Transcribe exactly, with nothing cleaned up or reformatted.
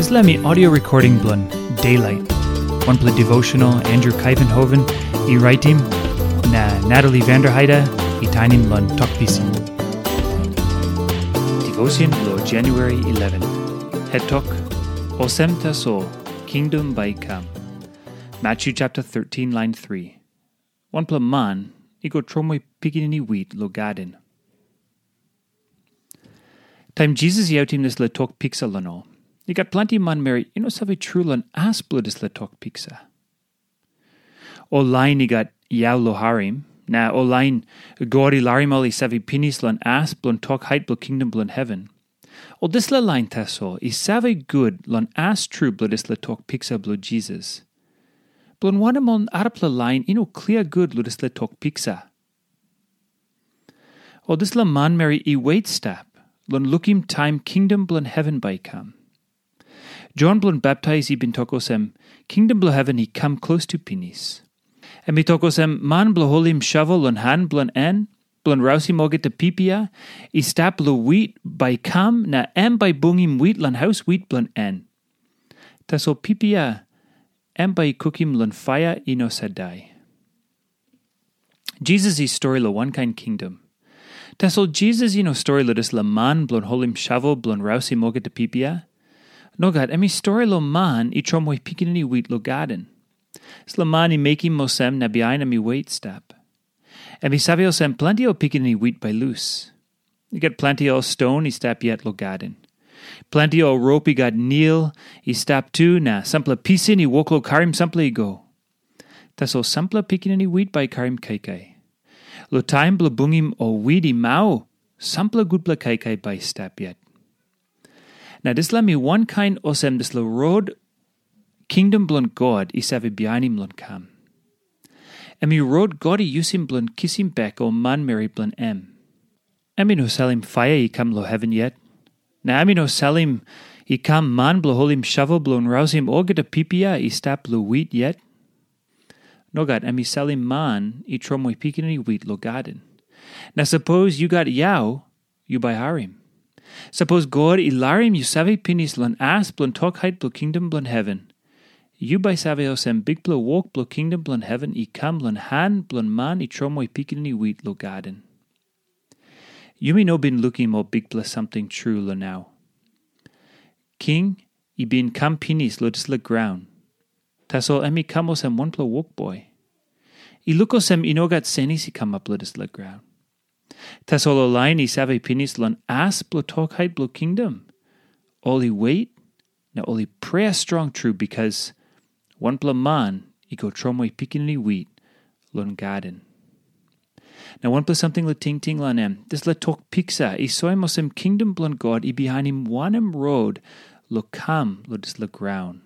Dispela mi audio recording bilong Daylight, wanpela devotional Andrew Kaivenhoven i raitim, na Natalie Vanderheide i tainim long Tok Pisin. Devotion bilong January eleven. Het tok, Olsem tasol, kingdom bai i kam. Matthew chapter thirteen, line three. Wanpela man i go tromoi pikinini wit long gaden. Taim Jisas i autim dispela tok piksa long ol, i gat planti manmeri i no save tru long as bilong dispela tok piksa. Ol lain i gat yau long harim, na ol lain God i larim ol i save pinis long as bilong tok hait bilong kingdom bilong heven. Ol dispela lain tasol i save gut long as tru bilong dispela tok piksa bilong Jisas. Bilong wanem ol arapela lain i no klia gut long dispela tok piksa? Ol dispela manmeri i wet stap long lukim taim kingdom bilong heven bai i kam. Jon bilong Baptais i bin tok olsem, kingdom bilong heven i kam klostu pinis. Em i tok olsem, man bilong holim shovel long han bilong en, bilong rausim olgeta pipia i stap long wit bai i kam, na em bai i bungim wit long haus wit bilong en. Tasol pipia em bai i kukim long paia i no sait dai. Jisas i stori long wankain kingdom. Tasol Jisas i no stori long dispela man bilong holim shovel bilong rausim olgeta pipia. Nogat, em i stori long man i tromoi pikinini wit long gaden. Dispela man i mekim olsem na bihain em i wet stap. Em i save olsem planti ol pikinini wit bai lus. I gat planti ol ston i stap yet long gaden. Planti ol rop i gat nil i stap tu, na sampela pisin i wok long karim sampela i go. Tasol sampela pikinini wit bai i karim kaikai. Long taim bilong bungim ol wit i mau, sampela gutpela kaikai bai i stap yet. Na dispela mi wankain olsem dispela rot kingdom bilong God i save bihainim long kam. Em i rot God i yusim bilong kisim bek ol manmeri bilong em. Em i no salim paia i kam long heven yet, na em i no salim i kam man bilong holim shovel bilong rausim olgeta pipia i stap long wit yet. Nogat, em i salim man i tromoi pikinini wit long gaden. Na sapos yu gat yau, yu bai harim. Sapos God i larim yu save pinis long as bilong tok hait bilong kingdom bilong heven, yu bai save olsem bikpela wok bilong kingdom bilong heven i kam long han bilong man i tromoi pikinini wit long gaden. Yumi no bin lukim ol bikpela samting tru long nau. King i bin kam pinis long dispela graun, tasol em i kam olsem wanpela wokboi. I luk olsem i no gat senis i kamap long dispela graun. Tasol ol lain i save pinis long as bilong tok hait bilong kingdom, ol i wet na ol i prea strong tru, bikas wanpela man i go tromoi pikinini wit long gaden. Na wanpela samting long tingting long em, dispela tok piksa i soim olsem kingdom bilong God i bihainim wanem rot long kam long dispela graun.